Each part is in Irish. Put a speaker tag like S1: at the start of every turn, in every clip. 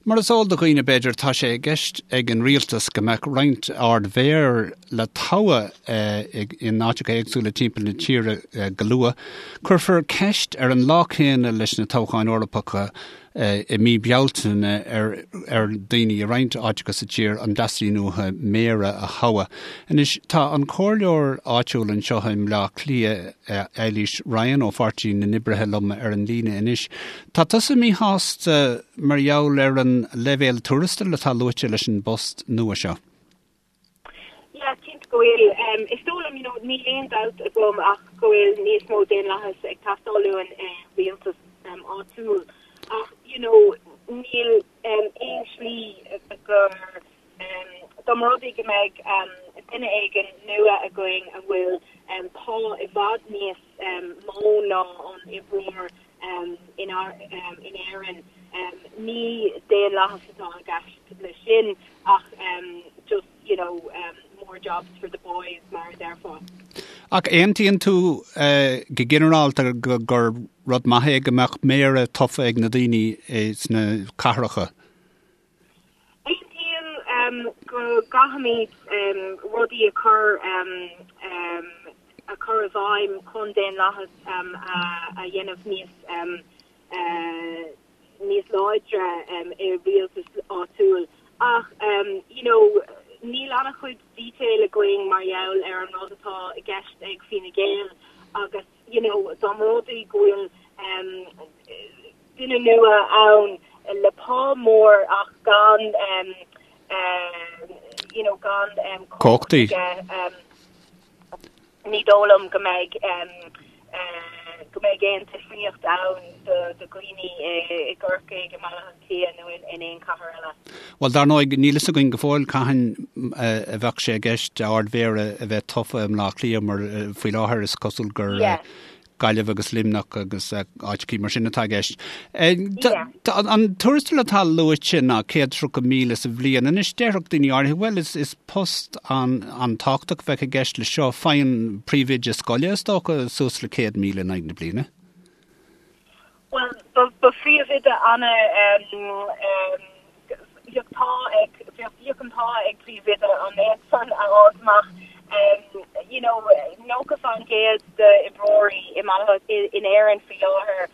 S1: Mar is eol do dhaoine, b'fhéidir, tá sé i gceist ag an rialtas go mbeadh roinnt Ard-Mhéara le toghadh in áiteacha éagsúla timpeall na tíre go luath. Cuirfear ceist ar an lá céanna leis na toghcháin Eorpacha i mí Bealtaine ar ar dhaoine i roinnt áiteacha sa tír an dteastaíonn uathu méara a thoghadh. Anois, tá an comhairleoir áitiúil anseo i mBleá Cliath, Eilís Ryan ó Pháirtí na nOibrithe liom ar an líne anois. Tá tusa míshásta mar gheall ar an leibhéal tuarastail atá luaite leis an bpost nua seo.
S2: Yeah, cinnte go bhfuil. Is dóigh liom, you know, níl aon dabht agam ach go bhfuil níos mó daonlathas ag teastáil uainn i rialtas áitiúil ach, you know, níl aon slí gur, dá mba rud é go mbeidh duine éigin nua againn a bhfuil pá i bhfad níos mó ná an oibreoir in Éirinn. Ní daonlathas atá i gceist leis sin ach just, you know, more jobs for the boys mar a déarfá.
S1: Ach aontaíonn tú go ginearálta gur rud maith é go mbeadh méara tofa ag na daoine sna cathracha?
S2: Aontaím go gcaithfimid rudaí a chur a chur i bhfeidhm chun daonlathas a dhéanamh níos níos láidre i rialtas áitiúil ach you know níl an-chuid detail againn mar gheall ar an rud atá i gceist ag Fine Gael agus you know dá mba rud é go bhfuil duine nua ann le pá mór ach gan you know gan
S1: cumhacht aige.
S2: Ní dóigh liom go mbeidh go mbeidh aon difríocht ann do dhaoine i gCorcaigh, i mBaile Átha Cliath nó in aon chathair eile.
S1: Bhuel, dar ndóigh, níl fhios againn go fóill cathain a bheadh sé i gceist Ard-Mhéara a bheith tofa i mBleá Cliath mar faoi láthair is cosúil gur Gaillimh agus Luimneach agus áiteachaí mar sin atá i gceist. An tuarastal atá luaite ná 130,000 sa bhliain. Anois déarfadh daoine áirithe, bhuel is post an-tábhachtach a bheadh i gceist le seo. Faigheann príomhoide scoile is dócha suas le 100,000 in aghaidh na bliana.
S2: Bhuel, ba phríomhoide ana Bheadh t-ádh ag, bheadh an t-ádh ag príomhoide an méid san a fháilt amach. You know, 90% d'oibreoirí i mBaile, in Éirinn faoi láthair,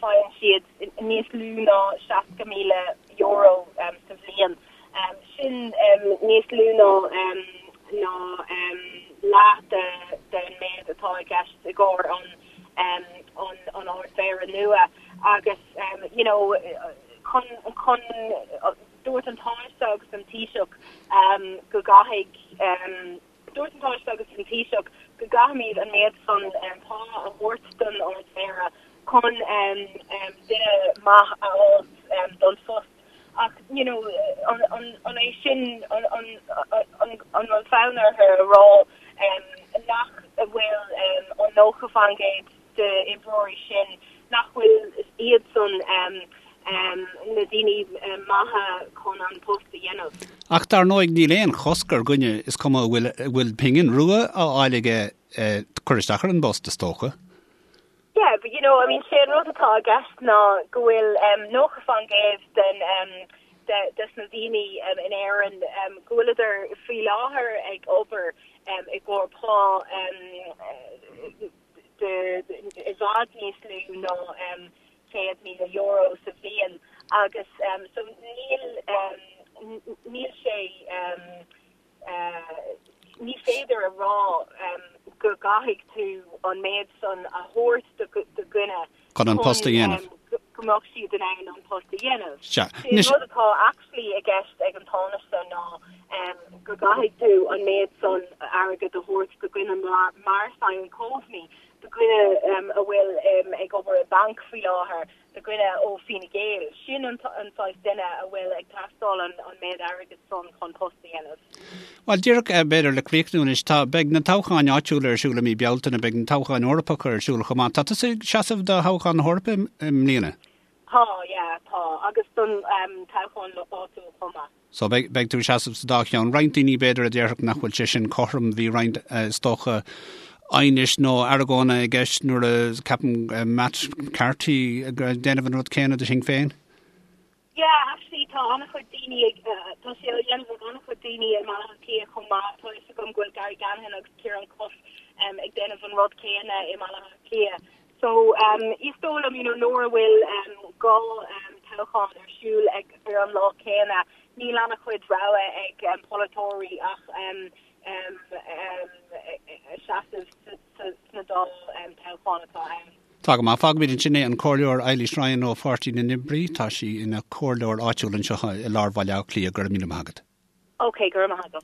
S2: faigheann siad níos lú ná €60,000 sa bhliain. Sin níos lú ná ná leath den méid atá i gceist i gcomhair an an Ard-Mhéara nua agus you know, chun, chun, dúirt an Tánaiste agus an Taoiseach go gcaithfidh, dúirt an Tánaiste agus an Taoiseach go gcaithfimid an méid san pá a thabhairt don Ard-Mhéara chun duine maith a fháilt don phost. Ach, you know, an, an, an é sin, an, an, an, an bhfuil fonn orthu a rá nach bhfuil an 90% d'oibreoirí sin nach bhfuil iadsan na daoine maithe chun an post a dhéanamh.
S1: Ach dar ndóigh níl aon chosc ar dhuine, is cuma an bhfuil, bhfuil pingin rua á fháil aige, cur isteach ar an bpost, is dócha.
S2: Yeah, but you know, I mean, sé an rud atá i gceist ná go bhfuil 90% den de des na daoine in Éirinn go bhfuileadar faoi láthair ag obair i gcomhair pá de i bhfad níos lú ná €100,000 sa bhliain agus so níl níl sé ní féidir a rá go gcaithfidh tú an méid san a thabhairt do dhuine
S1: chun an post a dhéanamh.
S2: go mbeadh siad in ann an post a dhéanamh. Sea. Sé an rud atá actually i gceist ag an Tánaiste ná go gcaithfidh tú an méid san airgid a thabhairt do dhuine mar Simon Coveney, do dhuine a bhfuil ag obair i banc faoi láthair, do dhuine ó Fine Gael. Sin an saghas duine a bhfuil ag teastáil an méid airgid san chun post a dhéanamh.
S1: Bhuel, díreach b'fhéidir le críochnú anois, tá, beidh na toghcháin áitiúla ar siúl i mí Bealtaine, beidh na toghcháin Eorpacha ar siúl chomh maith. Tá tusa ag seasamh do thoghchán na hEorpa i mbliana?
S2: Tá, yeah, tá. Agus don toghchán áitiúil chomh maith.
S1: So beidh, beidh tú ag seasamh sa dá cheann. Roinnt daoine b'fhéidir a déarfadh nach bhfuil sé sin cothrom, bhí roinnt is dócha aighnis nó argóna i gceist nuair a ceapadh Matt Carthy ag déanamh an rud céanna do Shinn Féin.
S2: Yeah, actually tá an-chuid daoine ag, tá sé á dhéanamh ag an-chuid daoine i mBaile Átha Cliath chomh maith. Tá fhios agam go bhfuil Gary Ganahan agus Ciarán Cuffe ag déanamh an rud céanna i mBaile Átha Cliath. So is dóigh liom, you know, nuair a bhfuil 2 toghchán ar siúl ag ar an lá céanna, níl an-chuid rogha ag polaiteoirí ach seasamh sna dá toghchán atá ann.
S1: Tá go maith. Fágfaimid ansin é. An Comhairleoir Eilís Ryan ó Pháirtí na nOibrí. Tá sí ina comhairleoir áitiúil anseo i lár Bhaile Átha Cliath. Go raibh míle maith agat.
S2: Ok, go raibh maith agat.